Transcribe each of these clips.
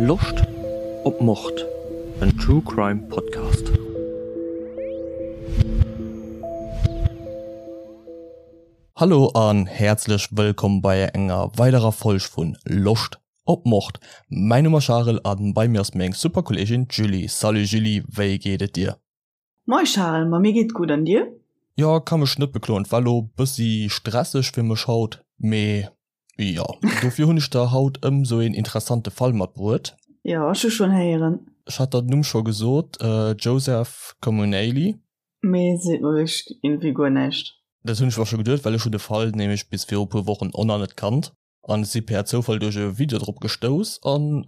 Loscht op Mord? En True Crime Podcast. Hallo an häerzlech wëllkomm bei enger weiderer Folg vun Loscht op Mord. Mäin Numm ass Charel an bei mir ass meng super Kolleegin d'Julie. Salut Julie, wéi geet et dir? Moi Charel, ma mir geet gutt an dir? Jo, ka mech net bekloen. War lo bëssi stresseg fir mech haut, mee jo, dofir hunn ech der haut ëm sou een interessante Fall matbruet. Jo, ech hu schonn héieren. Ech hat der den Numm scho gesot, Joseph Comunale. Mee seet mer wierklech iergendwéi guer näischt. Dat hunn ech mer scho geduet, well ech hunn de Fall nämlech bis viru puer Wochen och nach net kannt. An ech si per Zoufall duerch e Video drop gestouss an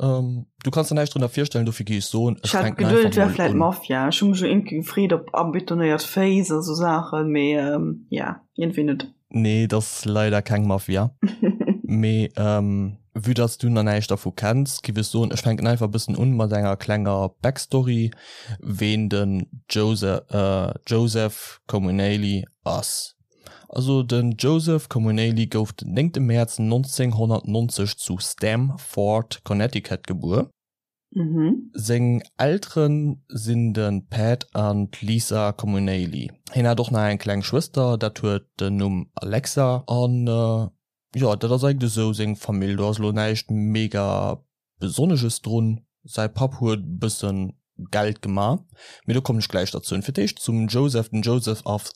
du kanns der näischt drënner virstellen, dofir gi ech soen, ech fänken einfach mol un. Ech hat geduet et wär vläit Mafia, ech hu mech jo iergendwéi gefreet op abetonéiert Féiss a sou Saachen, mee ja, iergendwéi net. Nee, et ass leider keng Mafia. Mee vue dass du nach näischt dervu kenns, giff ech soen, ech fänken einfach e bëssen un mat enger klenger Backstory, ween den Joseph Comunale ass. Also den Joseph Comunale gouf den 9 Mäerz 1990 zu Stamford, Connecticut gebuer. Seng Eltere sinn de Pat an d'Lisa Comunale. Hien hat och nach eng kleng Schwëster, dat huet den Numm Alexa. An jo, dat ass eigentlech esou seng Famill. Do ass elo näischt mega Besonnesches drun, säi Papp huet e bëssen Geld gema, mee do kommen ech gläich derzou. Fir d'éischt zum Joseph, Den Joseph ass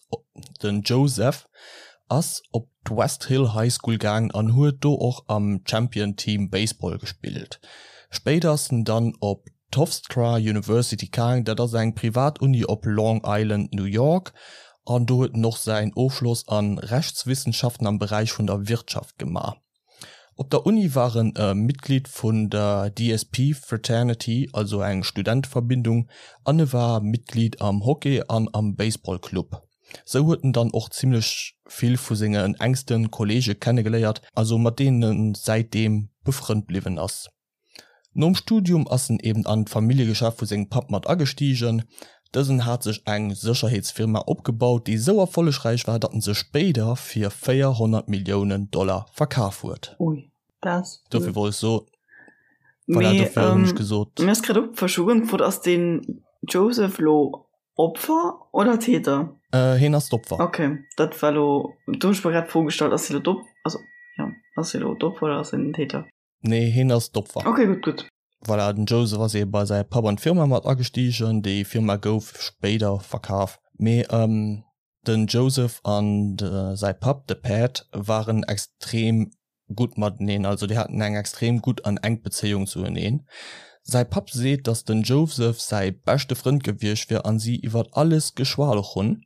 den Joseph ass op d'West Hill High School gaangen an huet do och am Champion Team Baseball gespillt. Spéider ass en dann op d'Hofstra University gaang, dat ass eng privat Uni op Long Island, New York, an do huet en och säin Ofschloss an Rechtswissenschaften am Beräich vun der Wirtschaft gema. Op der Uni war en e Mitglied vun der DSP Fraternity, also eng Studenteverbindung, an e war Mitglied am Hockey an am Baseball Club. Sou huet en dann och zimmlech vill vu sengen enkste Kolleege kennegeléiert, also mat deenen en säitdeem befrënnt bliwwen ass. Nom Studium ass en eben an d'Familljegeschäft vu sengem Papp mat agestigen. Dësen hat sech eng Sécherheetsfirma opgebaut, déi sou erfollegräich war, datt en se spéider fir 400 Milliounen Dollar verkaf huet. Ui, dat ass vill. Dofir wollt ech soen, voilà, Mee dofir hunn ech gesot. Mir ass grad opgefall, ech hu gefrot, ass den Joseph lo Opfer oder Täter? Hien ass d'Opfer. Ok, dat war lo, do hunn ech mer grad d'Fro gestallt, ass hie lo d'Op, also jo, ass hie lo d'Opfer oder ass hien den Täter? Nee, hien ass d'Opfer. Ok, gutt, gutt. Voilà, den Joseph ass ebe bei säi Papp an d'Firma mat agestigen. Déi Firma gouf spéider verkaf. Mee den Joseph an säi Papp, de Pat, waren extrem gutt mateneen. Also déi haten eng extrem gutt an enk Bezéiung zueneen. Säi Papp seet, datt den Joseph säi beschte Frënd gewiescht wier an si iwwert alles geschwat hunn.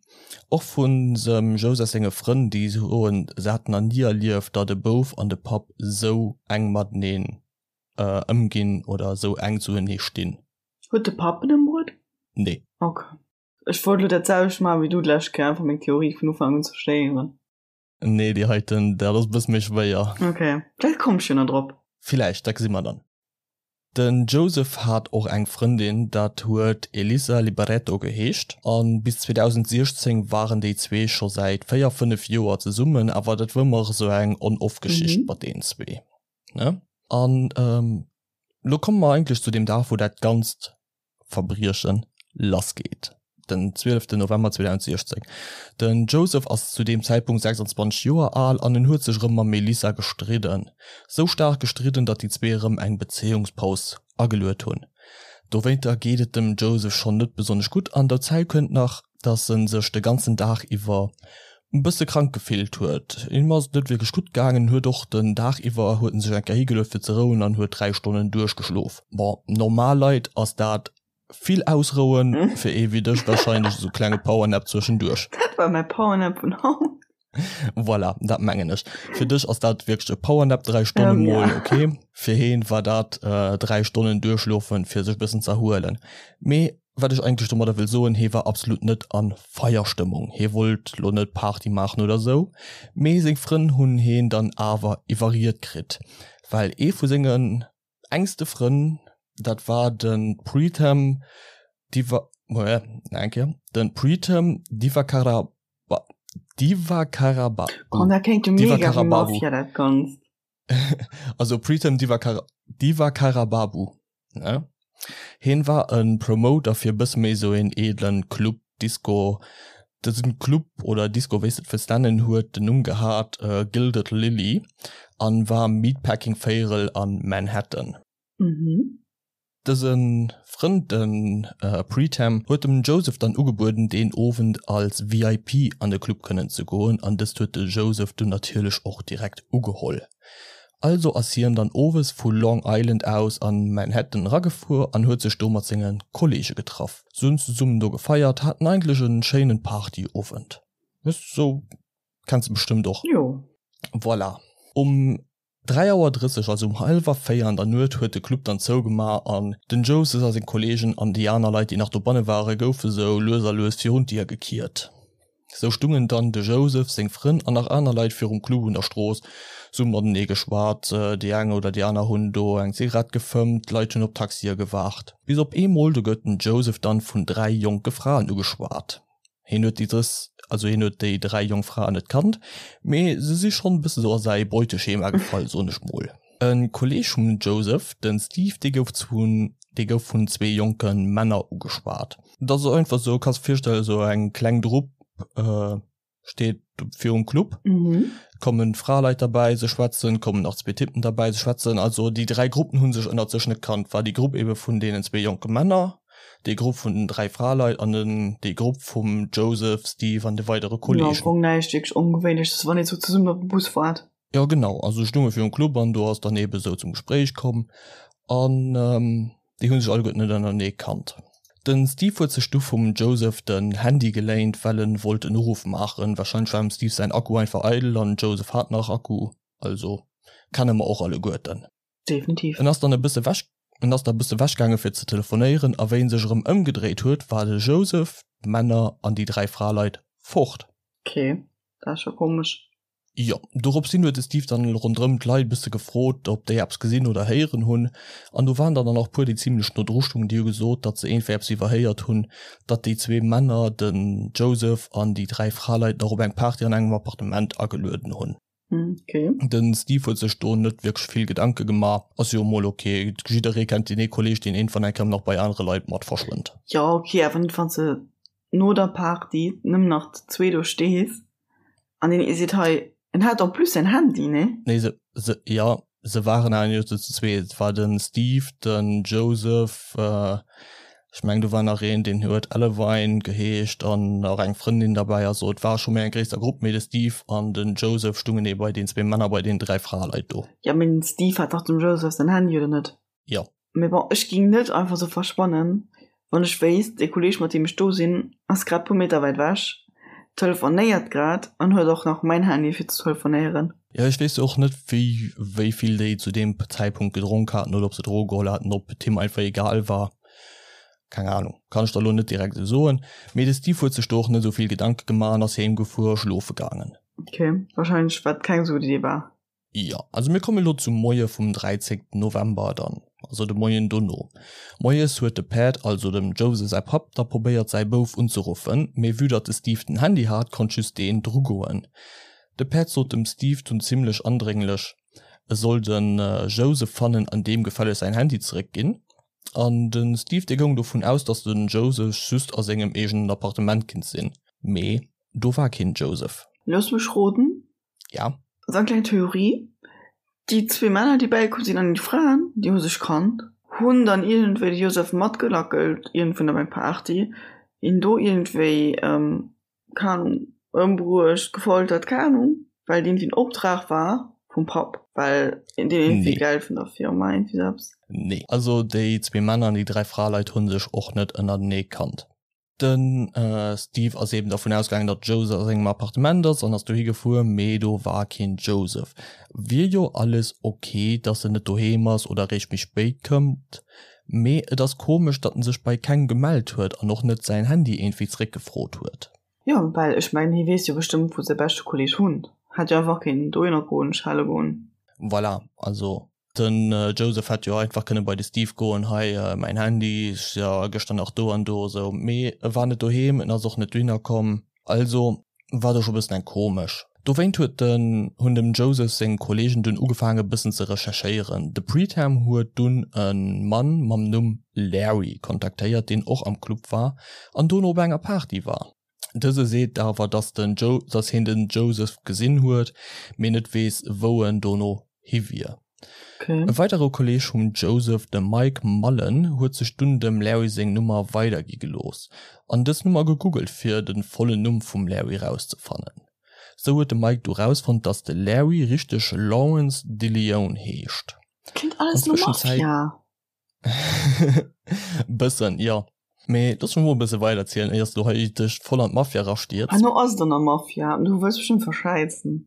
Och vun dem Joseph senge Frënn, déi soen, se hätten nach ni erlieft, datt e Bouf an de Papp esou enk mateneen ëmginn oder esou enk zuenee stinn. Huet de Papp en ëmbruet? Nee. Ok. Ech wollt elo dat selwecht maachen wéi du d'lescht Kéier, einfach meng Theorie vun Ufank un zerstéieren. Nee, déi heiten, dat ass e bësse méi schwéier. Ok, vläicht komm ech jo nach drop. Villäicht, dat gesi mer dann. Den Joseph hat och eng Frëndin, dat huet Elisa Liberetto geheescht, a bis 2016 waren déi zwee scho säit 4, 5 Joer zesummen, awer dat wor ëmmer esou eng On-Off-Geschicht mat deenen zwee, ne? An elo komme mer eigentlech zu deem Dag, wou dat Ganzt Verbrieche lassgeet. Den 12 November 2016. Den Joseph ass zu deem Zäitpunkt 26 Joer al an en huet sech erëm mam Melissa gestridden. Sou staark gestridden, datt déi zwee erëm eng Bezéiungspaus ageluet hunn. Dowéinter geet et dem Joseph schonn net besonnesch gutt an derzäi kënnt nach, datt en sech de ganzen Dag iwwer e bësse krank gefillt huet. Him ass et net wierklech gutt gaangen, huet och den Dag iwwer huet en sech eng Kéier higeluet fir ze rouen an huet 3 Stonnen duerchgeschlof. Bon, normal Leit ass dat vill ausrouen, fir ee wéi dech warscheinlech esou klenge Powernap zwëschenduerch. Dat war mäi Powernap vun haut. Voilà, dat mengen ech. Fir dech ass dat wierklech e Powernap, 3 Stonne mol, ok. Fir heen war dat 3 Stonnen duerchschlofen, fir sech e bëssen z'erhuelen. Mee Wat ech eigentlech domadder wëll soen, hee war absolut net a Feierstëmmung, hee wollt lo net Party maachen oder sou, mee seng Frënn hunn heen dann awer iwwerriet kritt, well ee vu sengen engste Frënn, dat war de Preetham Diva, nach eng Kéier, de Preetham Divakara, Divakaraba, Oh, dat kléngt jo mega wéi Mafia, dat Ganzt. Also Preetham Divakara, Divakarababu. Ne? Hien war e Promoter fir e bësse méi sou een edlen Club, Disco. Dësen Club oder Disco, wéi s de et wëlls nennen, huet den Numm gehat Gilded Lily an war am Meatpacking Véierel an Manhattan. Dëse Frënd, de Preetam, huet dem Joseph dann ugebueden deen Owend als VIP an de Club kënnen ze goen an dëst huet de Joseph dunn natierlech och direkt ugeholl. Also ass hien dann owes vu Long Island aus an Manhattan eragefuer an huet sech do mat senge Kollege getraff. Se hunn zesummen do gefeiert, haten eigentlech en schéinen Partyowend. Sou kenns de bestëmmt och. Jo. Voilà. Um 3 Auer 30, also um hallwer 4 an der Nuet huet de Club dann zougemaach an den Joses a seng Kollegen an déi aner Leit déi nach dobanne ware goufe sou lues a lues virun d'Dier gekiert. Sou stungen dann de Joseph, seng Frënn an nach aner Leit virum Club un der Strooss, se hu matenee geschwat, déi eng oder déi aner hunn do eng Zigarett gefëmmt, d'Leit hunn op Taxie gewaart. Bis op eemol, do gëtt den Joseph dann vun 3 jonke Fraen ugeschwat. Hien huet déi dës, also hien huet déi 3 jonk Fraen net kannt, mee se si schonn e bësse sou a säi Beuteschema gefall, soen ech mol. E Kolleeg vum Joseph, den Steve, dee gouf zu dee gouf vun zwee jonke Männer ugeschwat. Dat ass einfach sou, kanns de virstellen, sou eng kleng Drupp steet virum Club, kommen Fraleit derbäi, se schwätzen, kommen nach zwee Typen derbäi, se schwätzen. Also déi 3 Gruppen hu sech ënnert sech net kannt. War déi Grupp ebe vun deenen zwee jonke Männer, déi Grupp vun den 3 Fraleit an den déi Grupp vum Joseph, Steve an de weidere Kolleegen. Jo, am Fong näischt wierklech Ongewéinleches, wann ee sou zesummen op de Bus waart. Jo genau, also stounge virum Club an do ass dann eben esou zum Gespréich komm an déi hu sech alleguerten net ënnerenee kannt. Den Steve huet sech du vum Joseph den Handy geléint, well en wollt en Uruff maachen. Wahrscheinlech war dem Steve säin Akku einfach eidel an den Joseph hat nach Akku, also kenne mer och alleguerten. Definitiv. En ass dann e bësse wech, en ass da e bësse wech gaange fir ze telefonéieren a wéi en sech erëm ëmgedréit huet, war de Joseph, d'Männer an déi 3 Fraleit fort. Ok, dat ass scho komesch. Jo, dorops hin huet de Steve dann ronderëm d'Leit e bësse gefrot, ob déi eppes gesinn oder héieren hunn. An do waren der dann och puer, déi zimlech no dru stungen, déi hu gesot, datt se iergendwéi eppes iwwerhéiert hunn, datt déi zwee Männer, den Joseph an déi 3 Fraleit, nach op eng Party an engem Appartement agelueden hunn. Okay. Den Steve huet sech do net wierklech vill Gedanke gemaach. Ass jo emol ok, jidderee kennt deen ee Kolleeg, deen iergendwann eng Kéier nach bei anere Leit mat verschwënnt. Jo, ok, awer net wann s de no der Party nëmmen nach zu zwee do stees an deen ee seet hei, en hat en plus säin Handy, nee? Nee, se, se, jo, se waren awer net zu zwee, et war den Steve, den Joseph, ech mengen do war nach een, deen huet Elevine geheescht an nach eng Frëndin derbäi, also et war scho méi eng gréisser Grupp, mee de Steve an den Joseph stungen ee bei den zwee Männer bei den 3 Fraleit do. Jo, mee den Steve hat dach dem Joseph säin Handy, oder net? Jo. Mee bon, ech ging net einfach sou verschwannen, wann ech wéisst, dee Kolleg mat deem ech do sinn ass grad puer Meter wäit ewech, telefonéiert grad an huet och nach mäin Handy fir ze telefonéieren. Jo, ech weess och net wéi wéi vill déi zu deem Zäitpunkt gedronk haten oder ob se Droge geholl haten, ob et him einfach egal war, keng Ahnung, kann ech der elo net direkt esou soen. Mee de Steve huet sech do och net esou vill Gedanke gemaach an ass heem gefuer a schlofe gaangen. Ok, wahrscheinlech wat keng esou gutt Idee war. Jo, also mir komme lo zum Moie vum 13 November dann, also de Moien dono. Moies huet de Pat, also dem Jose säi Papp, da probéiert säi Bouf unzeruffen, mee vue datt de Steve den Handy hat, konnt just deen drugoen. De Pat sot dem Steve dunn zimmlech andrénglech, e soll de Jose fannen an deem gefälleg säin Handy zeréckginn. An de Steve dee goung dovun aus, datt de Joseph just a sengem eegenen Appartement kinnt sinn, mee do war keen Joseph. Looss mech roden, Ja. Esou eng kleng Theorie, Déi zwee Männer, déi bäikomm sinn, an déi Fraen, déi hu sech kannt, hunn dann iergendwéi de Joseph matgelackelt, iergendwou op eng Party, hien do iergendwéi, keng Ahnung, ëmbruecht, gefoltert, keng Ahnung, well et iergendwéi en Optrag war vum Papp, well deen iergendwéi Geld vun der Firma, iergendwéi sou eppes. Nee. Also déi zwee Männer an déi 3 Fraleit hu sech och net ënnertenee kannt. De Steve ass eben dervun ausgaangen, datt Joseph a sengem Appartement ass an ass dohi gefuer, mee do war keen Joseph. Wier jo alles ok, datt en net doheem ass oder eréischt méi spéit kënnt, mee et ass komesch, datt en sech bei kengem gemellt huet an och net säin Handy iergendwéi zeréckgefrot huet. Jo, well ech mengen, hie weess jo bestëmmt, wou säi beschte Kolleeg wunnt. Hätt jo einfach kéinten dohinner goen, schelle goen. Voilà, also Den Joseph hätt jo einfach kënne bei de Steve goen, hei mäin Handy, ech si jo gëschter nach do an do esou. Mee e war net doheem, en ass och net dohinner komm. Also war do scho bëssen eng komesch. Dowéint huet den hunn dem Joseph seng Kolleegen dunn ugefaange bëssen ze recherchéieren. De Preetam huet dunn e Mann mam Numm Larry kontaktéiert, deen och am Club war an dono op enger Party war. Dëse seet awer, dass den dass hien den Joseph gesinn huet, mee net weess wou en dono hi wier. Okay. E weidere Kolleeg vum Joseph, de Mike Mullen, huet sech dunn dem Larry seng Nummer weidergi gelooss an dës Nummer gegoogelt fir de vollen Numm vum Larry rauszefannen. Sou huet de Mike du rausfonnt, dass de Larry richteg Lawrence DeLeon heescht. Klingt alles no Mafia. Bëssen, jo. Mee looss mech mol e bësse weiderzielen, éier s du hei dech voll an d'Mafia erastierz. Herno ass et an der Mafia an du wëlls bestëmmt verschäizen.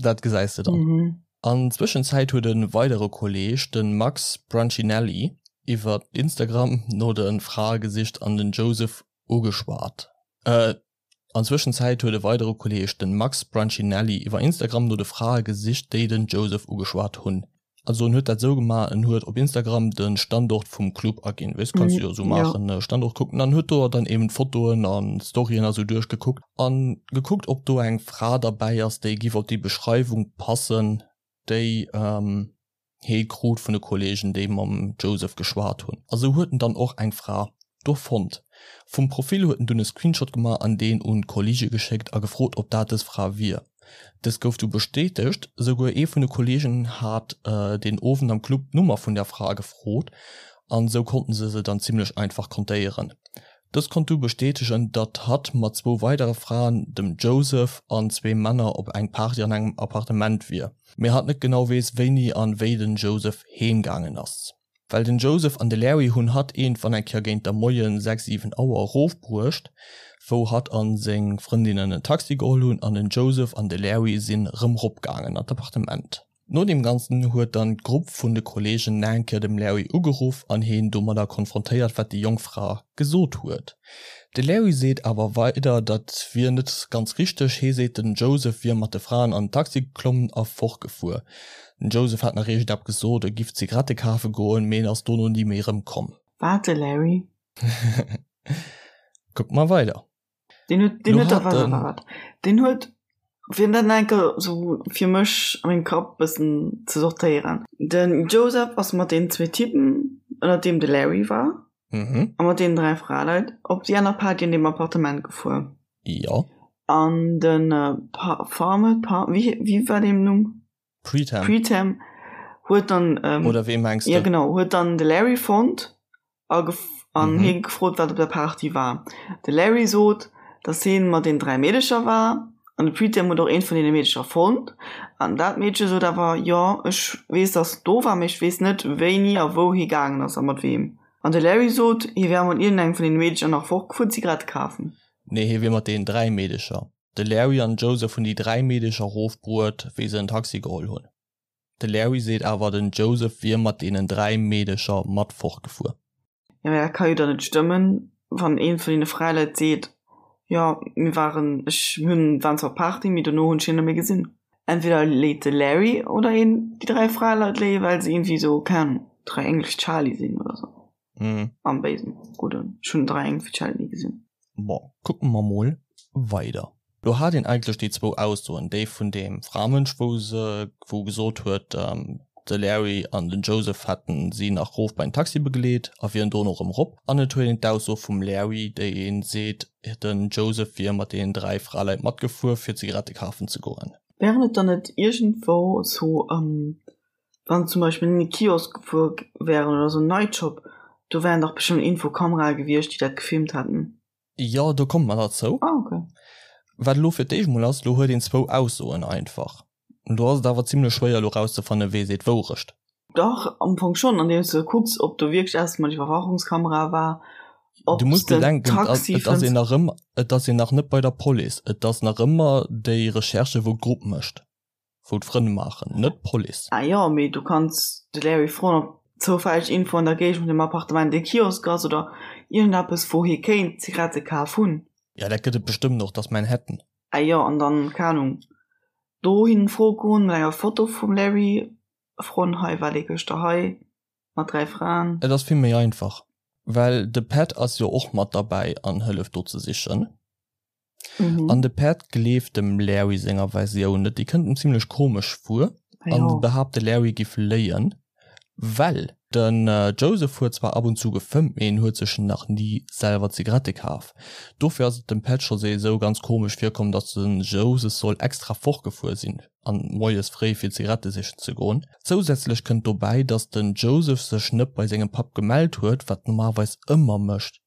Dat gesäis de dann. Mhm. An Zwëschenzäit huet e weidere Kolleeg, de Max Brancinelli, iwwer Instagram no de Frae gesicht an den Joseph ugeschwat. An Zwëschenzäit huet e weidere Kolleeg, den Max Brancinelli, iwwer Instagram no de Frae gesicht, déi den Joseph ugeschwat hunn. Also en huet dat esou gemaach, en huet op Instagram de Standort vum Club aginn, weess, kanns du jo esou maachen, Standort kucken, an huet do dann eben d'Fotoen an d'Storyen a sou duerchgekuckt an gekuckt, ob do eng Fra derbäi ass, déi giff op déi Beschreiwung passen, déi hee krut vun de Kollegen, déi mam Joseph geschwat hunn. A sou huet en dann och eng Fra do fonnt. Vum Profil huet en dunn e Screenshot gemaach an deen un d'Kolleege geschéckt a gefrot, ob dat dës Fra wier. Dës gouf du bestätegt. Souguer ee vun de Kolleegen hat deen Owend am Club d'Nummer vun der Fra gefrot an sou konnten se se dann zimmlech einfach kontéieren. Dës konnt du bestätegen, datt hatt mat zwou weidere Fraen, dem Joseph an zwee Männer op eng Party an engem Appartement wier, mee hatt net genau weess wéini an wéi den Joseph heem gaangen ass. Well den Joseph an de Larry hunn hatt iergendwann eng Kéier géint der Moien 6, 7 Auer erofbruecht, wou hatt an seng Frëndinnen en Taxi geholl hunn an den Joseph an de Larry sinn rëm ropgaangen an d'Appartement. No deem Ganzen huet dann d'Grupp vun de Kollegen nach eng Kéier dem Larry ugeruff an heen domadder konfrontéiert wat déi jonk Fra gesot huet. De Larry seet awer weider dat wier net ganz richteg, hee seet den Joseph wier mat de Fraen an den Taxi geklommen a fortgefuer. Den Joseph hat nach iergendeppes gesot, e giff Zigarette kafe goen, mee en ass dono ni méi erëmkomm. Wat, de Larry? Kucke mer weider. Deen huet, deen huet, wat, wat, wat, deen huet, fir dat nach eng Kéier sou fir mech a mengem Kapp bëssen ze sortéieren. Den Joseph ass mat deenen zwee Typen, ënnert deem de Larry war, mhm. a mat deenen dräi Fraleit op déi aner Party an deem Appartement gefuer. Jo. An den äh, Pa Farme, Pa wéi, wéi war deem Numm? Preetam. Preetam huet dann ähm, Oder wee mengs ja genau huet dann de Larry fonnt a an mhm. hie gefrot wat op der Party war. De Larry sot, dass hien mat den dräi Meedecher war an de Preetam huet och eent vun deene Meedecher fonnt an dat Meedche sot awer jo ech weess dass do war mee ech weess net wéini a wou hie gaangen ass a mat weem. An de Larry sot hie wär mat iergendengem vun deene Meedecher nach fortgefuer Zigarette kafen. Nee hie wier mat deenen dräi Meedecher. De Larry an Joseph hunn déi 3 Meedecher rofbruet, wéi se en Taxi geholl hunn. De Larry seet awer, den Joseph wier mat deenen 3 Meedecher mat fortgefuer. Jo, mee dat ka jo dann net stëmmen, wann ee vun deene Fräileit seet, jo, mir waren, ech hunn, waren zwar op Party, mee dono hunn ech hien net méi gesinn. Entweder léit de Larry oder een déi 3 Fraleit léien, well se iergendwéi esou, keng Ahnung, 3 English Charlie sinn oder esou. Mhm. Am Béisen, gudden. Ech hunn 3 English Charlie ni gesinn. Bon, kucke mer mol weider. Do hat een eigentlech déi zwou Aussoen, déi vun deem Framënsch, wou se, wou gesot huet, de Larry an den Joseph hätten si nach rof bei den Taxi begleet a wieren dono erëm rop. An et huet een d'Ausso vum Larry, déi een seet, den Joseph wier mat deenen 3 Fraleit matgefuer, fir Zigarette kafen ze goen. Wären et dann net iergendwou sou Wann zum Beispill en Kiosk gefuer wären oder sou en Nightshop, do wären dach bestëmmt Infokamerae gewiescht, déi dat gefilmt hätten. Jo, do komme mer derzou. Ah, okay. Wat elo fir d'éischt mol ass, elo huet een zwou Aussoen einfach. Do ass et awer zimlech schwéier elo rauszefannen, wee seet d'Wourecht. Dach, am Fong schonn, andeems de kucks, ob do wierklech eppes mat Iwwerwachungskamera war, ob Du muss s den bedenken, Taxi et ass fënns. een nach ëmmer, et ass een nach net bei der Police, et ass nach ëmmer déi Recherche wou d'Grupp mécht. wou d'Frënn maachen, net d'Police. Ah jo, mee du kanns de Larry froen, ob zoufälleg iergendwou an der Géigend vun dem Appartement e Kiosk ass oder iergendeppes, wou hie kéint Zigarette kaf hunn. Ja, dat gëtt et bestëmmt och, dat ass Manhattan. Ah jo, an dann, keng Ahnung, dohin froe goen mat enger Foto vum Larry, froen, hei war dee gëschter hei mat 3 Fraen. Et ass vill méi einfach, well de Pat ass jo och mat derbäi an hëlleft do ze sichen. Mhm. An de Pat gleeft dem Larry senger Versioun net, déi kënnt em zimlech komesch vir an ja. behaapt de Larry giff léien, well den äh, Joseph huet zwar ab und zu gefëmmt, mee en huet sech nach ni selwer Zigarette kaf. Dofir ass et dem Pat scho esou ganz komesch virkomm, datt den Joseph soll extra fortgefuer sinn an moies fréi fir Zigarette sichen ze goen. Zousätzlech kënnt dobäi, datt den Joseph sech net bei sengem Papp gemellt huet, wat normalerweis ëmmer mécht.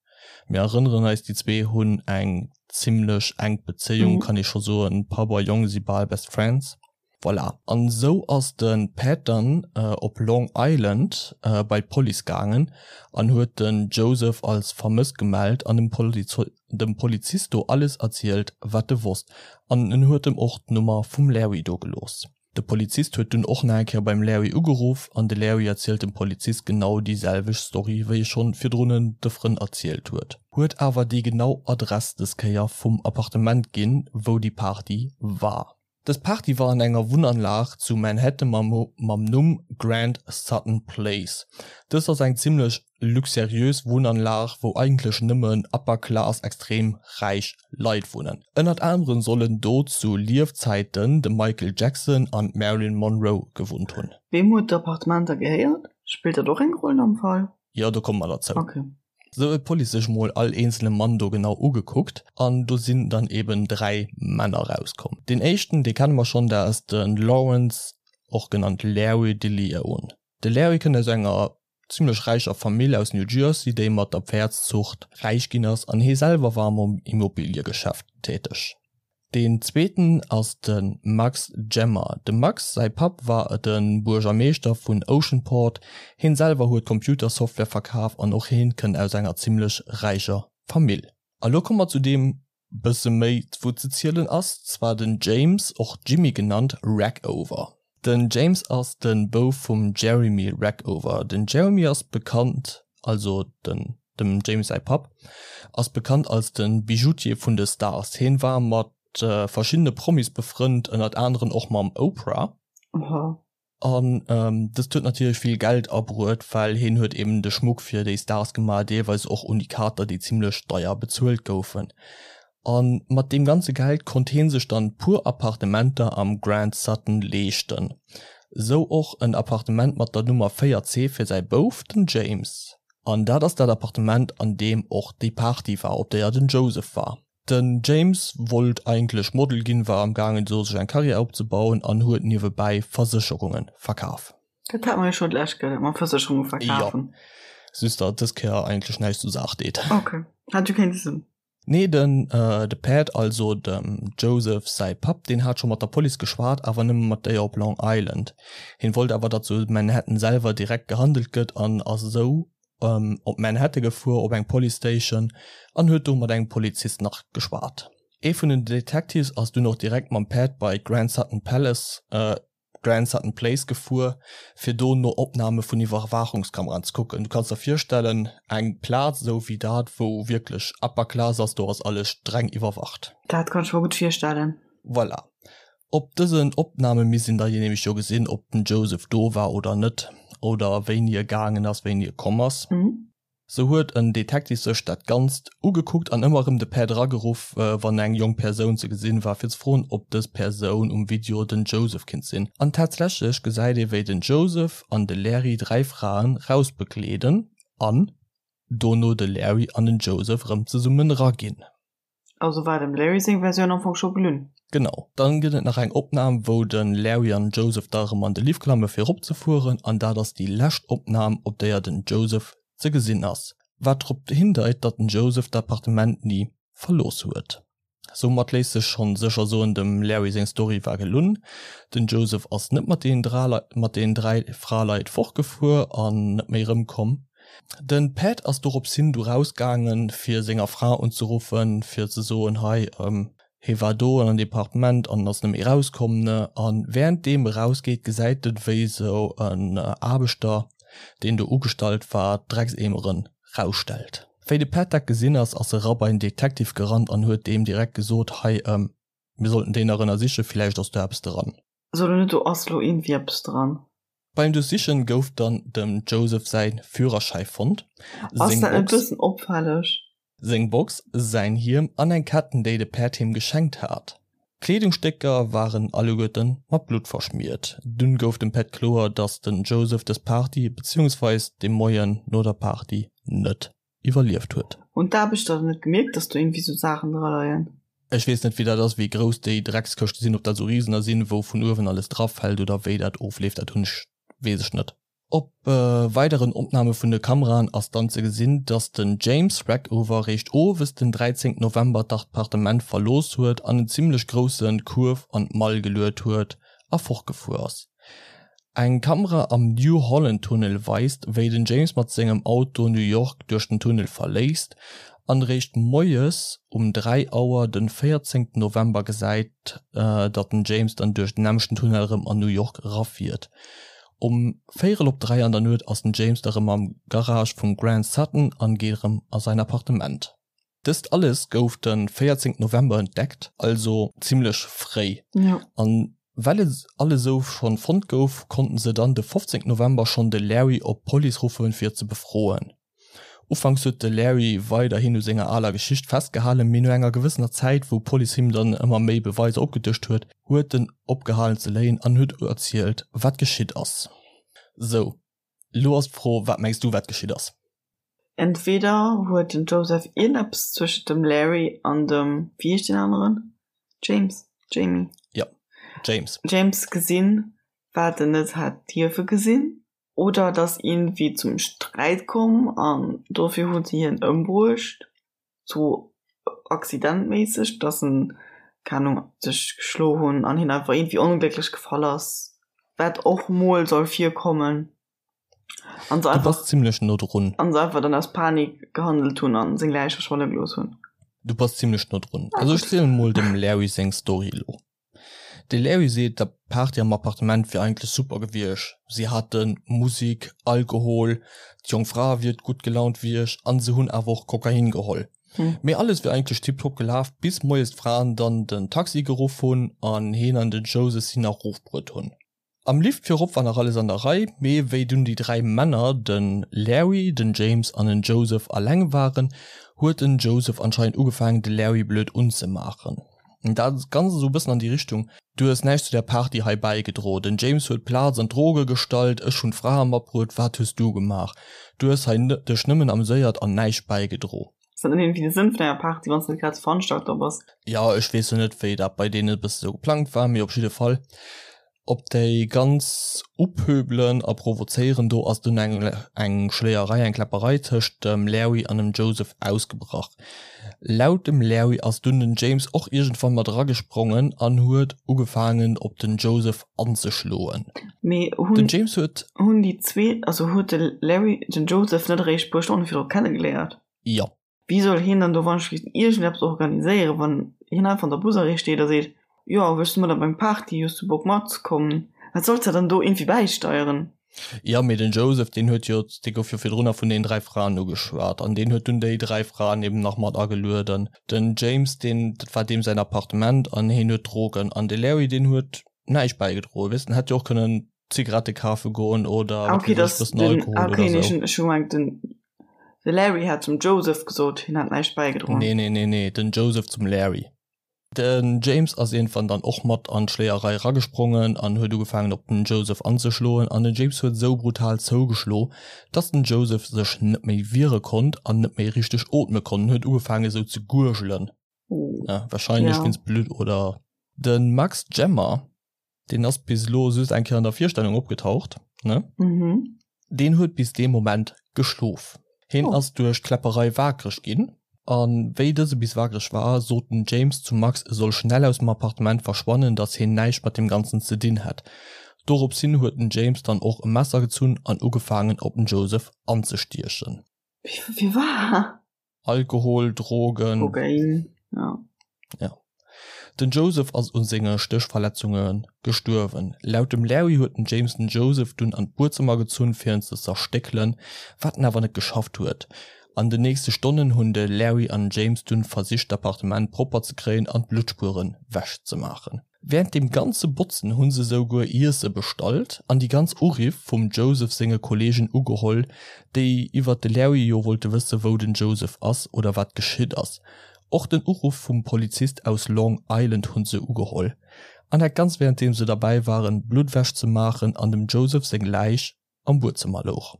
Mir erënneren eis, déi zwee hunn eng zimmlech enk Bezéiung, kann ee scho soen. Papp a Jong si bal Best Friends. Voilà, an esou ass de Pat dann op Long Island bei d'Police gaangen an huet den Joseph als vermësst gemellt an dem Polizist do alles erzielt, wat e wosst an en huet em och d'Nummer vum Larry do gelooss. De Polizist huet dunn och nach eng Kéier beim Larry ugeruff an de Larry erzielt dem Polizist genau déi selwecht Story wéi e schonn virdrun de Frënn erzielt huet. Huet awer déi genau Adress des Kéier vum Appartement ginn, wou déi Party war. Dës Party war an enger Wunnanlag zu Manhattan mam Numm Grand Sutton Place. Dëst ass eng zimmlech luxuriös Wunnanlag, wou eigentlech nëmmen upper class, extrem räich Leit wunnen. Ënnert aneren sollen do zu Liefzäiten de Michael Jackson an d'Marilyn Monroe gewunnt hunn. Weem huet d'Appartement da gehéiert? Spillt dat och eng Roll am Fall? Jo, do komme mer derzou. Okay. Sou huet d'Police sech mol all eenzele Mann do genau ugekuckt an do sinn dann eben 3 Männer rauskomm. Deen éischten, dee kenne mer schonn, dat ass de Lawrence, och genannt Larry DeLeon. De Larry kënnt aus enger zimmlech räicher Famill aus New Jersey, déi mat der Pfäerdszucht räich ginn ass an hee selwer war am Immobiliegeschäft täteg. Deen zweeten ass de Max Gemmer. Dem Max säi Papp war de Buergermeeschter vun Oceanport. Heen selwer huet Computersoftware verkaf an och heen kënnt aus enger zimmlech räicher Famill. A lo komme mer zu deem bësse méi wou ze zielen ass, zwar den James, och Jimmy genannt, Rackover. Den James ass de Bouf vum Jeremy Rackover. Den Jeremy ass bekannt, also den dem James säi Papp, ass bekannt als de Bijoutier vun de Stars. Hien war mat verschiddene Promis befrënnt, ënnert aneren och mam Oprah. Oha. An dëst huet natierlech vill Geld abruet, well hien huet eben de Schmuck fir déi Stars gemaach, deelweis och Unikater, déi zimmlech deier bezuelt goufen. A mat deem ganze Geld konnt hie sech dann puer Appartementer am Grand Sutton leeschten. Sou och en Appartement mat der Nummer 4C fir säi Bouf, den James. An dat ass dat Appartement, an deem och déi Party war, op déier den Joseph war. Den James wollt eigentlech Model ginn, war am gaangen do sech eng Karriär opzebauen an huet niewebäi Versécherunge verkaf. Dat hat mer jo scho d'lescht Kéier, dat mam Versécherunge verkafen. Jo, just datt dës Kéier eigentlech näischt zur Saach deet. Ok, hat jo kéinte sinn. Nee, den de Pat, also dem Joseph säi Papp, deen hat scho mat der Police geschwat, awer nëmme mat déier op Long Island. Hien wollt awer, datt zu Manhattan selwer direkt gehandelt gëtt an ass esou op Manhattan gefuer op eng Police Station an huet do mat engem Polizist nach geschwat. Ee vun den Detectives ass dunn och direkt mam Pat bei d'Grand Sutton Palace, Grand Sutton Place gefuer, fir do no Opname vun Iwwerwaachungskameraen ze kucken. Du kanns der virstellen, eng Plaz esou wéi dat, wou wierklech upper class ass, do ass alles streng iwwerwacht. Dat kann ech mer gutt virstellen. Voilà. Op dësen Opname misst een da nämlech jo gesinn, ob den Joseph do war oder net, oder wéini e gaangen ass, wéini e komm ass. Sou huet en Detective sech dat Ganzt ugekuckt an ëmmer erëm de Pat erageruff, wann eng jonk Persoun ze gesinn war, fir ze froen, ob dës Persoun um Video den Joseph kinnt sinn. An tatsächlech gesäit ee wéi den Joseph an de Larry 3 Fraen rausbegleeden an dono de Larry an den Joseph erëm zesummen eraginn. Also war dem Larry seng Versioun am Fong scho gelunn. Genau. Dann gëtt et nach eng Opnahm wou den Larry an Joseph da erëm an de Lift klamme fir erop ze fueren an dat ass déi lescht Opnahm op déier den Joseph ze gesinn ass, wat drop hindeit datt den Joseph d'Appartement ni verlooss huet. Soumat léisst sech schonn sécher soen, dem Larry seng Story war gelunn, den Joseph ass net mat deenen 3 Fraleit fortgefuer an net méi erëmkomm. Den Pat ass dorops hin du raus gaangen fir senger Fra unzeruffen fir ze soen hei hee war do an an Departement an ass net méi raus komm ne an während deem e raus geet gesäit en wéi sou en Aarbechter deen do ugestallt war d'Dreckseemeren rausstellt. Wéi de Pat dat gesinn ass ass e ra bei den Detective gerannt an huet deem direkt gesot hei mir sollten déi nach ënnersichen villäicht ass do eppes dran. So lo net do ass lo iergendwéi eppes dran. Beim Duerchsichen gouf dann dem Joseph säi Führerschäi fonnt, Ass seng dat net Box. bëssen opfälleg? Seng Box, säin Hiem an eng Ketten, déi de Päerd him geschenkt hat. D'Kleedungsstécker waren alleguerte mat Blutt verschmiert. Dunn gouf dem Päerd kloer, dass den Joseph dës Party, beziehungsweis de Moien no der Party, net iwwerlieft huet. Hunn d'Aarbechter dann net gemierkt, dass do iergendwéi sou Saachen dra leien? Ech weess net, wéi dat ass, wéi grouss déi Dreckskëschte sinn, ob dat sou Risener sinn, wou vun uewen alles drafält oder wéi dat ofleeft, dat hunn ech, weess ech net. Op weideren Opname vun de Kameraen ass dann ze gesinn, dass den James Rackover réischt owes den 13 November d'Appartement verlooss huet an en zimmlech grousse Kuerf an d'Mall geluet huet a fortgefuer ass. Eng Kamera am New Holland Tunnel weist, wéi den James mat sengem Auto New York duerch den Tunnel verléisst an réischt moies um 3 Auer den 14 November gesäit, datt den James dann duerch den nämmlechten Tunnel erëm an New York erafiert. Um véierel op 3 an der Nuet ass den James da rëm am Garage vum Grant Sutton an geet erëm a säin Appartement. Dëst alles gouf de 14 November entdeckt, also zimmlech fréi. An well et alles esou schonn fonnt gouf, konnten se dann de 15 November schonn de Larry op d'Police ruffen fir ze befroen. Ufanks huet de Larry weiderhin u senger aler Geschicht festgehalen, mee no enger gewëssener Zäit, wou d'Police him dann ëmmer méi Beweiser opgedëscht huet, huet en opgehalen ze léien an huet erzielt, wat geschitt ass. Sou, lo ass d'Fro, wat mengs du, wat geschitt ass? Entweder huet den Joseph iergendeppes zwëschent dem Larry an dem, wéi heescht deen aneren? James? Jamie? Jo, James. James gesinn, wat en net hätt dierfe gesinn. Oder et ass iergendwéi zum Sträit komm an dofir hu se hien ëmbruecht, sou accidentméisseg, dass en, keng Ahnung, sech geschlo hunn an hien einfach iergendwéi onglécklech gefall ass, wat och mol soll virkommen. An se einfach. Du bass zimlech no drun. An se einfach dann aus Panik gehandelt hunn an seng Läich verschwanne gelooss hunn. Du bass zimlech no drun. Also ech zielen mol dem Larry seng Story elo. De Larry seet, d'Party am Appartement wier eigentlech super gewiescht. Si hate Musik, Alkohol, d'jonk Fra wier gutt gelaunt wiescht an se hunn awer och Kokain geholl. Mee alles wier eigentlech tiptop gelaf, bis moies d'Fraen dann den Taxi geruff hunn an heen an den Joseph si nach erofbruet hunn. Am Lift virop war nach alles an der Rei, mee wéi dunn déi 3 Männer, de Larry, den James an den Joseph alleng waren, huet den Joseph anscheinend ugefaangen de Larry blöd unzemaachen. Dat Ganzt esou e bëssen an déi Richtung, Du hues näischt zu der Party hei bäigedro, den James huet d'Plaz an d'Droge gestallt, ech hunn d'Frae matbruet, wat hues du gemaach? Du hues hei dech nëmmen ameséiert an näischt bäigedro. Ass dat net iergendwéi de Sënn vun enger Party, wann s de net grad de Veranstalter bass? Jo, ech weess jo net, wéi dat bei deenen e bësse sou geplangt war, mee op jidde Fall, op déi ganz Uphöbelen a Provozéieren do ass dunn eng eng Schléierei, eng Kläpperei tëscht dem Larry an dem Joseph ausgebrach. Laut dem Larry ass dunn den James och iergendwann mat eragesprongen an huet ugefaangen op den Joseph anzeschloen. Mee hunn Den James huet. Hunn déi zwee, also huet de Larry den Joseph net eréischt e puer Stonne virdru kennegeléiert? Jo. Wéi soll hien dann do wann-ech-weess iergendeppes organiséieren, wann hien einfach an der Busarrêt steet a seet, Jo, wëlls du mat op eng Party, hues du Bock matzekommen? Wat solls de dann do iergendwéi bäisteieren? Jo, mee den Joseph, deen huet jo, dee gouf jo virdrunner vun deenen 3 Fraen ugeschwat an deen huet dunn déi 3 Fraen eben nach mat agelueden. Den James, deen, dat war deem säin Appartement an heen huet Drogen an de Larry, deen huet näischt bäigedroen, weess, en hätt jo och kënnen Zigarette kafe goen oder ah, okay, das, den, Alkohol ah, okay, oder so. Ech hu gemengt, den de Larry hat zum Joseph gesot, hien hat näischt bäigedroen. Nee, nee, nee, nee, den Joseph zum Larry. Den James ass iergendwann dann och mat an d'Schléierei eragesprongen an huet ugefaangen op den Joseph anzeschloen an den James huet esou brutal zougeschlo, dass den Joseph sech net méi wiere konnt an net méi richteg ootme konnt en huet ugefaangen esou ze gurgelen, wahrscheinlech wéinst Blutt oder. Den Max Gemmer Deen ass bis elo just eng Kéier an der Virstellung opgetaucht, ne? Mhm. Deen huet bis dee Moment geschlof. Heen oh. ass duerch d'Kläpperei waakreg ginn. An wéi dëse bis waakreg war, sot den James zum Max, e soll schnell aus dem Appartement verschwannen, datt heen näischt mat deem Ganzen ze dinn hätt. Dorops hin huet den James dann och e Messer gezunn an ugefaangen op den Joseph anzestiechen. Wie war? Alkohol, Drogen. Kokain, ja. Ja. Den Joseph ass u senge Stéchverletzunge gestuerwen. Laut dem Larry huet den James den Joseph dunn an d'Buedzëmmer gezunn fir en ze zerstéckelen, wat en awer net geschafft huet. An den nächste Stonnen hunn de Larry an den James dunn versicht d'Appartement propper ze kréien an d'Bluttspueren wech ze maachen. Während deem ganze Botzen hunn se souguer Iesse bestallt an déi ganz Uriff vum Joseph senge Kollegen ugeholl, déi iwwert de Larry jo wollte wësse wou den Joseph ass oder wat geschitt ass. Och den Uruff vum Polizist aus Long Island hunn se ugeholl. An dat ganz währenddeem se derbäi waren Blutt ewech ze maachen an dem Joseph seng Läich am Buedzëmmer louch.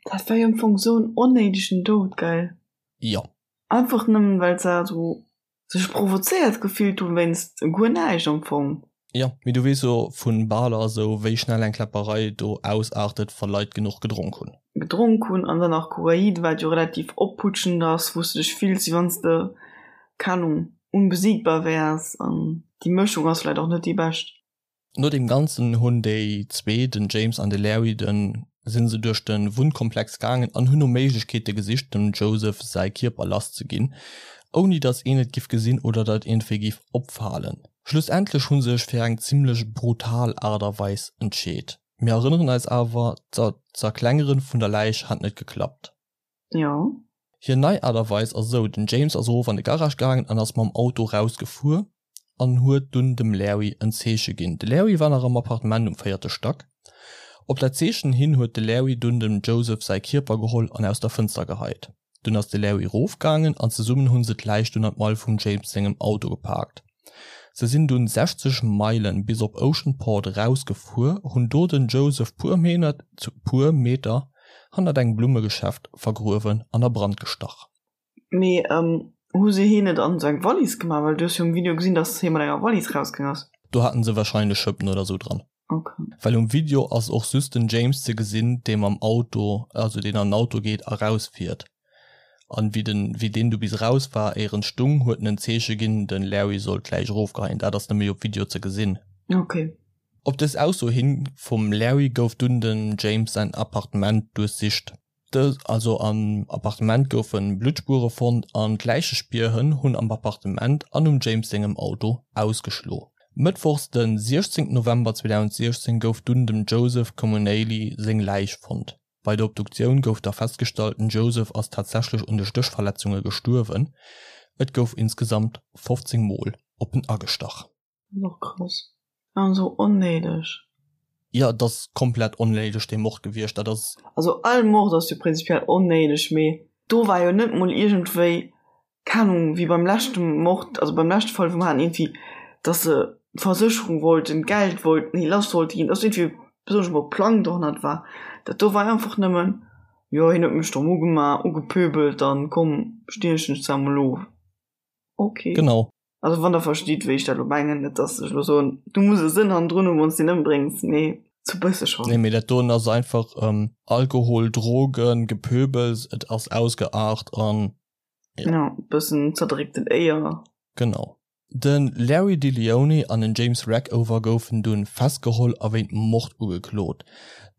Dat war jo am Fong sou en onnéidegen Doud, gell? Jo. Einfach nëmmen well se esou sech provozéiert gefillt hunn wéinst guer näischt am Fong. Jo, mee du weess jo vun Baler esou wéi schnell eng Kläpperei do ausaartet wa Leit genuch gedronk hunn. Gedronk hunn an dann nach Kokain, wat jo relativ opputschend ass, wou s de dech fills wéi wann s de, keng Ahnung, unbesiegbar wäers an déi Mëschung ass vläicht och net déi bescht. No deem Ganzen hunn déi zwee, den James an de Larry, de sinn se duerch de Wunnkomplex gaangen an hunn no Méiglechkeete gesicht, dem Joseph säi Kierper lass ze ginn, ouni datt een et giff gesinn oder datt iergendwéi giff opfalen. Schlussendlech hu sech fir eng zimmlech brutal Aart a Weis entscheet. Mir erënneren eis awer, d'Zerklengere vun der Läich hat net geklappt. Jo. Hir nei Aart a Weis ass esou, den James ass erof an de Garage gaangen an ass mam Auto rausgefuer an huet dunn dem Larry en Zeeche ginn. De Larry war nach am Appartement um véierte Stack. Op dat Zeechen hin huet de Larry dunn dem Joseph säi Kierper geholl an aus der Fënster geheit. Dunn ass de Larry rofgaangen an zesummen hunn se d'Läich dunn an d'Mall vum James sengem Auto gepaakt. Se sinn dunn 60 Meilen bis op Oceanport eraus gefuer, hunn do den Joseph puer puer Meter hannert engem Blummegeschäft vergruewen an a Brand gestach. Mee hu se heen net an sou eng Wallis gemaach? Well du hues jo um Video gesinn, dass hee mat enger Wallis rausgaang ass. Do haten se wahrscheinlech Schëppen oder sou dran. Ok. Well um Video ass och just den James ze gesinn, dee mam Auto, also deen an den Auto geet a rausfiert. An wéi den, wéi deen du bis raus war, éier en stung, huet en en Zeeche ginn, den Larry soll d'Läich erofgeheien. Dat ass nëmme op Video ze gesinn. Ok. Op dës Ausso hin vum Larry gouf dunn dem James säin Appartement duerchsicht. Dës, also am Appartement goufe Bluttspuere fonnt an d'Läichespierhënn hunn am Appartement an um James sengem Auto ausgeschlo. Mëttwochs de 16 November 2016 gouf dunn dem Joseph Comunale seng Läich fonnt. Bei der Obduktioun gouf da festgestallt, den Joseph ass tatsächlech un de Stéchverletzunge gestuerwen. Et gouf insgesamt 15 Mol op en agestach. Dat ass och krass. An esou onnéideg. Jo, et ass komplett onnéideg dee Mord gewiescht. Dat ass. Also all Mord ass jo prinzipiell onnéideg, mee do war jo net mol iergendwéi, keng Ahnung, wéi beim leschte Mord, also beim leschte Fall wou mer haten iergendwéi, dass se d'Versécherung wollten, d'Geld wollten, hir lass wollte ginn, dass iergendwéi besonnesch mol Plang dohannert war. Dat do war einfach nëmmen, jo hien huet mech domm ugemaach, ugepöbelt, dann komm stiechen ech zwar mol of. Ok. Genau. Also wann der verstitt wéi ech dat elo mengen, net dass ech elo soen, du muss e Sënn hannendrun hunn wann s de en ëmbréngs, mee sou bësse schonn. Nee, mee dat doen ass einfach Alkohol, Drogen, Gepöbels, et ass ausgeart an jo. Ja, bëssen zerdréckten Éier. Genau. De Larry DeLeone an den James Rackover goufen dunn festgeholl a wéint Mord ugeklot.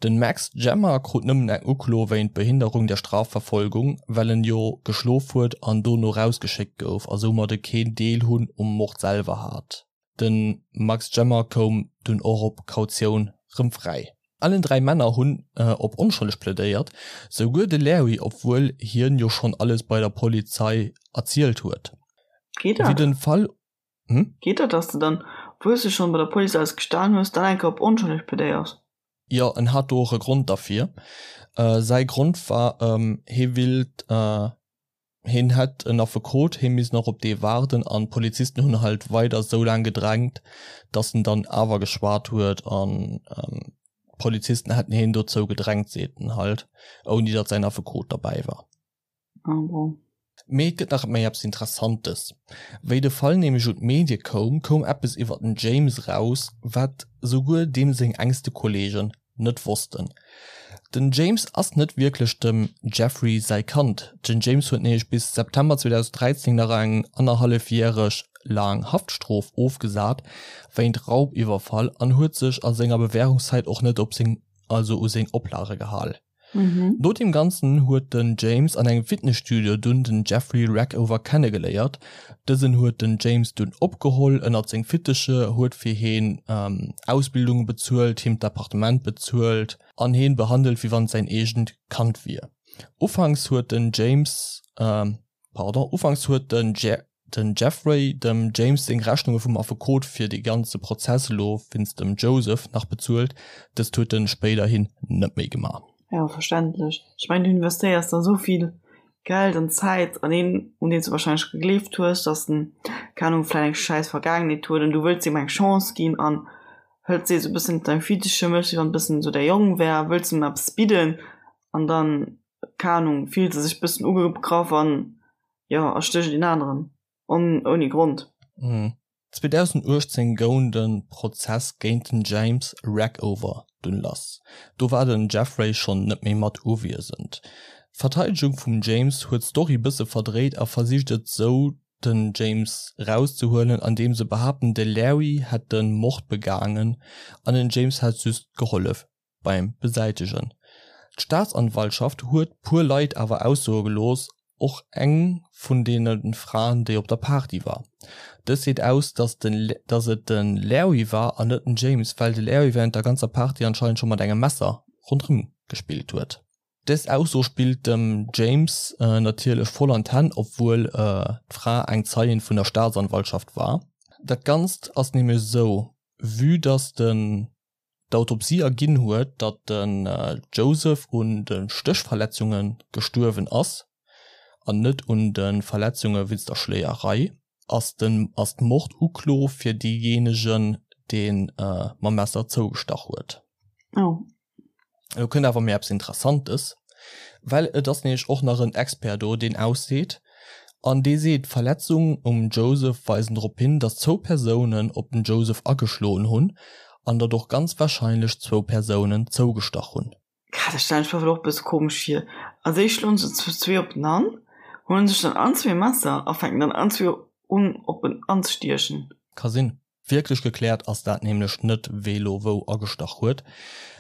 Den Max Gemma krut nëmmen eng Uklo wéint Behinderung der Strafverfolgung, well en jo geschlof huet an dono rausgeschéckt gouf a soumadde keen Deel hunn um Mord selwer hat. Den Max Gemma koum dunn och op Kautioun rëm fräi. Allen 3 Männer hunn op onschëlleg plädéiert, souguer de Larry, obwuel hien jo schonn alles bei der Polizei erzielt huet. Geet dat? Wéi den Fall. Hm? Geet dat, dass de dann, obwuel s de schonn bei der Police alles gestan hues, dann eng Kéier op onschëlleg plädéiers? Jo, en hat do och e Grond derfir. Säi Grond war, hie willt, hien hätt en Affekot, hie misst nach op dee waarden an d'Polizisten hunn halt weider esou laang gedrängt, datt en dann awer geschwat huet an d'Polizisten hätten hien dozou gedrängt, seet en halt, ouni datt säin Affekot derbäi war. Ah bon. Mee et gëtt nach méi eppes Interessantes. Wéi de Fall nämlech un d'Medie koum, koum eppes iwwer den James raus, wat souguer deem seng engste Kolleegen net wossten. Den James ass net wierklech dem Jeffrey säi Kand. Den James huet nämlech bis September 2013 nach eng annerhallefjäreg laang Haftstrof ofgesat wéint Raubiwwerfall an huet sech a senger Bewährungszäit och net op seng also u seng Oplage gehal. No deem Ganzen huet den James an engem Fitnesstudio dunn den Jeffrey Rackover kennegeléiert. Dësen huet den James dunn opgeholl ënnert seng Fitteche, huet fir heen Ausbildunge bezuelt, him d'Appartement bezuelt an heen behandelt wéi wann et säin eegent Kand wier. Ufanks huet den James, pardon, ufanks huet den. den Jeffrey dem James seng Rechnunge vum Affekot fir dee ganze Prozess elo wéinst dem Joseph nach bezuelt. Dëst huet en spéiderhin net méi gemaach. Jo, verständlech. Ech mengen, du investéiers da sou vill Geld an Zäit an een, un deen s du warscheinlech gegleeft hues, dass en, keng Ahnung, vläicht eng schäiss Vergaangenheet huet an du wëlls him eng Chance ginn an hëls dee sou e bëssen ënner deng Fittiche, méchs wéi wann e bëssen sou däi Jong wär, wëlls him eppes bidden an dann, keng Ahnung, fillt e sech e bëssen ugegraff an, jo, erstécht een aneren on, ouni Grond. 2018 goung de Prozess géint den James Rackover dunn lass. Do war den Jeffrey schonn net méi mat uwiesend. D'Verteidegung vum James huet d'Story bësse verdréit a versicht et sou den James rauszehuelen andeem se behaapten de Larry hätt de Mord begaangen an den James hätt just gehollef beim Besäitegen. D'Staatsanwaltschaft huet puer Leit awer aussoe gelooss, och eng vun deene Fraen, déi op der Party war. Dës seet aus, datt et de Larry war an net den James, well de Larry wärend der ganzer Party anscheinend scho mat engem Messer ronderëm gespillt huet. Dës Ausso spillt dem James natierlech voll an d'Hänn, obwuel d'Fra eng Zeien vun der Staatsanwaltschaft war. Dat Ganzt ass nämlech esou, vue datt den d'Autopsie erginn huet, datt den Joseph un de Stéchverletzunge gestuerwen ass an net un de Verletzunge wéinst der Schléierei, ass den ass d'Morduklo fir deejéinegen, dee mam Messer zougestach huet. Oh. Elo kënnt awer méi eppes Interessantes, well et ass nämlech och nach en Expert do, deen ausseet, an dee seet, d'Verletzungen um Joseph weisen drop hin, datt zwou Persounen op den Joseph ageschloen hunn an datt och ganz warscheinlech zwou Persounen zougestach hunn. Dat stellen ech mer och e bësse komesch vir. Als éischt schloen se zu zwee op den an, huelen sech dann allen zwee e Messer a fänken dann allen zwee un op en anzestiechen. Ka sinn. Wierklech gekläert ass dat nämlech net, wee lo wou agestach huet,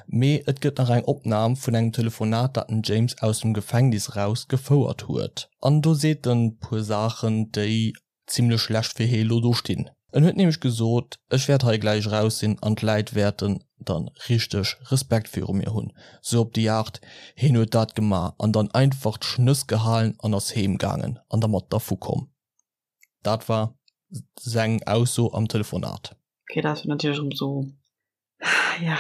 mee et gëtt nach eng Opnam vun engem Telefonat, dat den James aus dem Gefängnis raus gefouert huet. An do seet en puer Saachen, déi zimmlech schlecht fir hee lo do stinn. En huet nämlech gesot, Ech wäert hei gläich eraus sinn an d'Läit wäerten dann richteg Respekt viru mir hunn. Sou op déi Aart, heen huet dat gemaach an dann einfach d'Schnëss gehalen an ass heem gaangen an dermat dervu komm. Dat war seng Ausso am Telefonat. Okay, dat ass natierlech erëm sou, ja.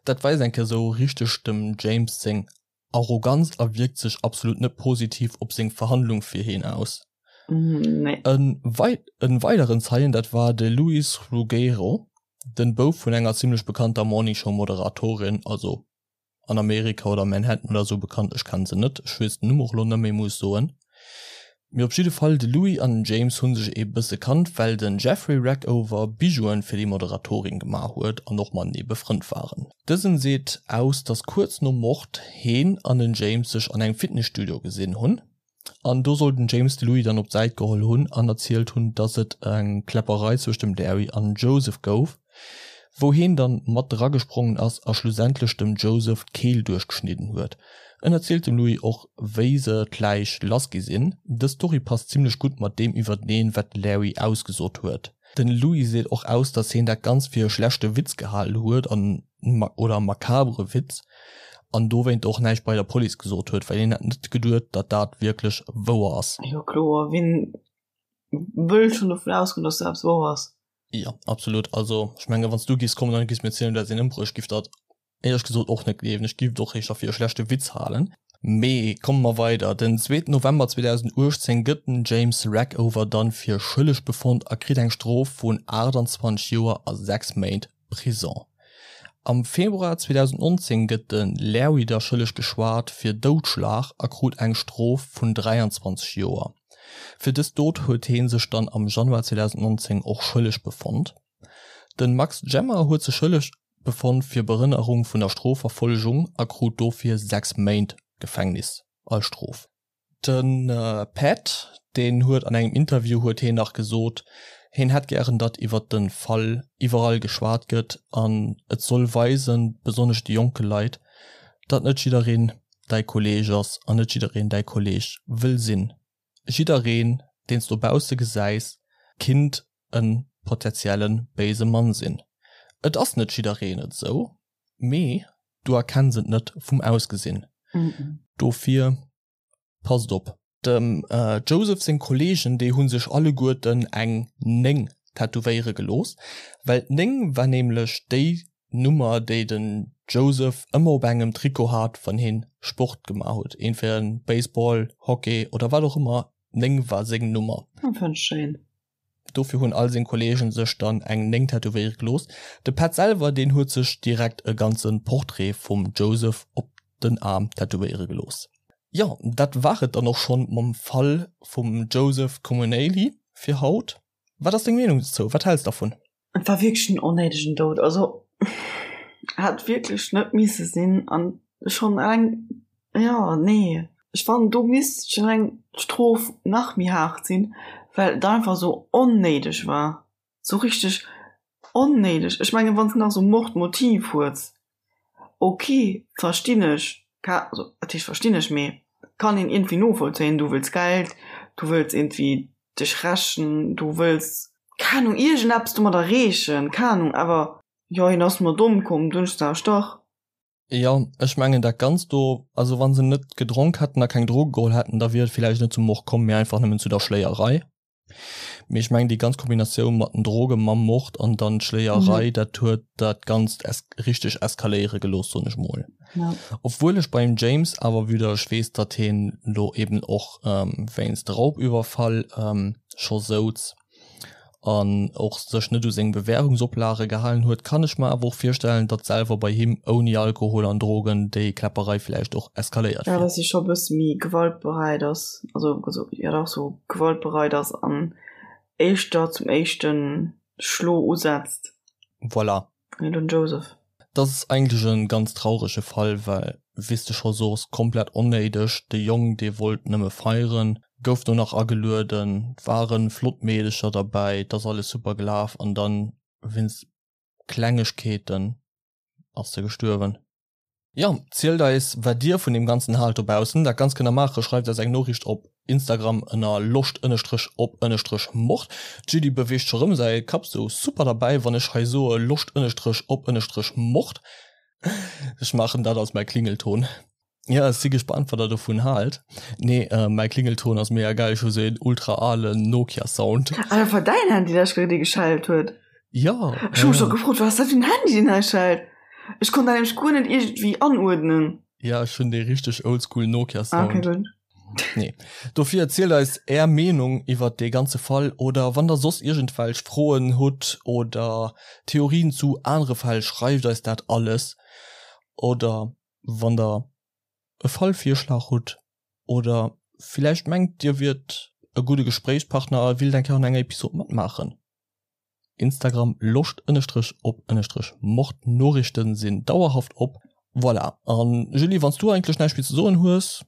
Dat weist eng Kéier sou richteg dem James seng Arroganz a wierkt sech absolut net positiv op seng Verhandlung fir heen aus. Nee. En weideren Zeien, dat war de Luis Ruggiero, den Bouf vun enger zimlech bekannter Morning Show Moderatorin, also an Amerika oder Manhattan oder sou bekannt, ech kennen se net, ech weess den Numm och lo net méi, muss ech soen. Mee op jidde Fall, de Louis an den James hu sech ee bësse kannt, well den Jeffrey Rackover Bijouen fir déi Moderatorin gemaach huet an och matenee befrënnt waren. Dësen seet aus, dass kuerz nom Mord heen an den James sech an engem Fitnesstudio gesinn hunn. An do soll den James de Louis dann op d'Säit geholl hunn an erzielt hunn, dass et eng Kläpperei zwëscht dem Larry an Joseph gouf, wou heen dann mat dragesprongen ass a schlussendlech dem Joseph d'Keel duerchgeschnidden huet. En erzielt dem Louis och wéi se d'Läich lass gi sinn. Dës Story passt zimlech gutt mat deem iwwerteneen, wat de Larry ausgesot huet. Den Louis seet och aus, dass heen dat Ganzt fir e schlechte Witz gehalen huet an oder makabere Witz an dowéint och näischt bei der Police gesot huet, well hien hätt net geduet, datt dat wierklech wouer ass. Jo kloer, wien wëll schonn dovun ausgoen, dass dat eppes wouer ass? Jo, absolut. Also ech menge wann s du giffs kommen an giffs mir erzielen, du häss een ëmbruecht, giff dat éierlech gesot och net gleewen. Ech giff et och éischter fir e schlechte Witz halen. Mee komme mer weider, Den zweeten November 2018 gëtt den James Rackover dann fir schëlleg befonnt a kritt eng Strof vun 28 Joer a 6 Méint Prison. Am Februar 2019 gëtt de Larry da schëlleg geschwat fir Doudschlag a krut eng Strof vun 23 Joer. Fir dës Dot huet hee sech dann am Januar 2019 och schëlleg befonnt. De Max Gemmer huet sech schëlleg befonnt fir Behënnerung vun der Strofverfollegung a krut dofir 6 Méint Gefängnis als Strof. De Pat, deen huet an engem Interview huet heen nach gesot, heen hätt gären, datt iwwert de Fall iwwerall geschwat gëtt an et soll weisen, besonnesch de jonke Leit, datt net jiddereen däi Kolleeg ass an net jiddereen däi Kolleeg wëll sinn. Jiddereen, deen s dobausse gesäis, kinnt e potentielle béise Mann sinn. Et ass net jiddereen et esou, mee du erkenns et net vum Ausgesinn. Dofir passt op. Dem Joseph seng Kolleegen, déi hu sech alleguerten eng 9 tätowéiere gelooss, well d'Néng war nämlech déi Nummer, déi den Joseph ëmmer op engem Trikot hat, wann hien Sport gemaach huet, entweder Baseball, Hockey oder wat och ëmmer, d'Néng war seng Nummer. Dat fannen ech schéin. Dofir hunn all seng Kolleegen sech dann eng 9 tätowéiere gelooss. De Pat selwer, deen huet sech direkt e ganze Portrait vum Joseph op den Aarm tätowéiere gelooss. Jo, dat war et dann och schonn mam Fall vum Joseph Comunale fir haut. Wat ass deng Meenung dozou? Wat häls dervun? Et war wierklech en onnéidegen Doud, also hätt wierklech net misse sinn an schonn eleng, jo nee, ech fannen do misst schonn eleng d'Strof nach méi haart sinn, well et einfach esou onnéideg war, sou richteg onnéideg. Ech mengen wann s de nach esou Mordmotiv hues, ok verstinn ech, also wat heescht verstinn ech, mee kann een iergendwéi novollzéien, du wëlls Geld, du wëlls iergendwéi dech rächen, du wëlls, keng Ahnung, iergendeppes domat erreechen, keng Ahnung, awer jo, hien ass mat ëmkomm, dunn hu ech gesot, dach. Jo, ech mengen dat Ganzt do, also wa se net gedronk hätten a keng Droge geholl hätten, da wier et villäicht net zum Mord komm, mee einfach nëmmen zu der Schléierei. Mee ech mengen déi ganz Kombinatioun mat den Droge mam Mord an dann d'Schléierei, dat huet dat Ganzt es richteg eskaléiere gelooss, soen ech mol. Obwuel ech beim James awer wieder ech weess, datt heen lo eben och wéinst Raubüberfall scho souz an och sech net u seng Bewährungsoplage gehalen huet, kann ech mer awer och virstellen, datt selwer bei him ouni Alkohol an Drogen déi Kläpperei villäicht och eskaléiert wier. Jo, datt hie scho e bësse méi gewaltbereit ass, also jo dach sou gewaltbereit ass an éischter zum éischte Schlo usetzt. Voilà. Wéi den Joseph. Dat ass eigentlech e ganz traurege Fall, well wéi s de scho sos, komplett onnéideg. De Jong, dee wollt nëmme feieren, gouf do nach agelueden, et ware flott Meedecher derbäi, et ass alles super gelaf an dann wéinst Klengegkeeten ass se gestuerwen. Jo, zielt eis wat dir vun deem ganzen haalt dobaussen. Dat Ganzt kënnt der maachen, schreift eis eng Noriicht op Instagram ënner loscht ënnestrech op ënnestrech mord. D'Julie beweegt scho rëm säi Kapp sou super derbäi wann ech hei soe loscht ënnestrech op ënnestrech mord. Ech maachen dat als mäi Klingelton. Jo, ech si gespannt wat der dovun haalt. Nee, mäi Klingelton ass mega geil, ech hu sou een ultra alen Nokia Sound. Ah, dat war däin Handy dat dee geschellt huet? Jo. Ech hu mech scho gefrot, wat ass dat fir en Handy deen hei schellt? Ech konnt dat nämlech guer net iergendwéi anuerdnen. Ja, ech hunn dee richteg oldschool Nokia Sound. Ah, okay, gutt. Nee. Dofir erzielt eis är Meenung iwwert dee ganze Fall oder wann der soss iergendwelch Froen hutt oder Theorien zu anere Fäll, schreift eis dat alles. Oder wann der e Fallvirschlag hutt oder villäicht mengt dir wiert e gudde Gespréichspartner a willt eng Kéier an enger Episod matmaachen. Instagram Loscht ënnestrech op ënnestrech Mord Noriichten sinn dauerhaft op. Voilà, an Julie wanns du eigentlech näischt méi ze soen hues?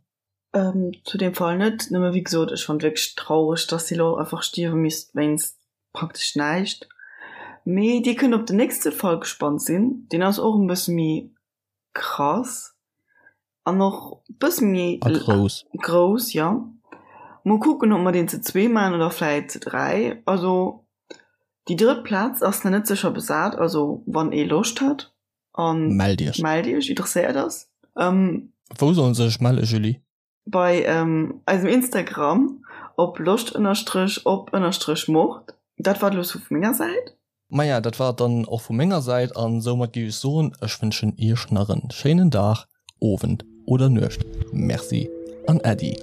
Zu deem Fall net, nëmme wéi gesot ech fannt wierklech traureg dass si lo einfach stierwe misst wéinst praktesch näischt. Mee dir kënnt op den nächste Fall gespannt sinn, deen ass och en bësse méi krass an och bësse méi A grouss. grouss, jo. Mol kucken, ob mer deen ze zwee maachen oder vläit ze 3. Also déi drëtt Plaz ass nach net sécher besat, also wann ee Loscht hat an Mellt iech. mellt iech, interesséiert ass. Wou sollen se sech melle, Julie? Bei eisem Instagram op loscht ënnerstrech op ënnerstrech mord. Dat war et elo sou vu menger Säit. Maja, dat war et dann och vu menger Säit an soumat géif ech soen, ech wënschen iech nach en schéinen Dag, Owend oder Nuecht. Merci an Äddi.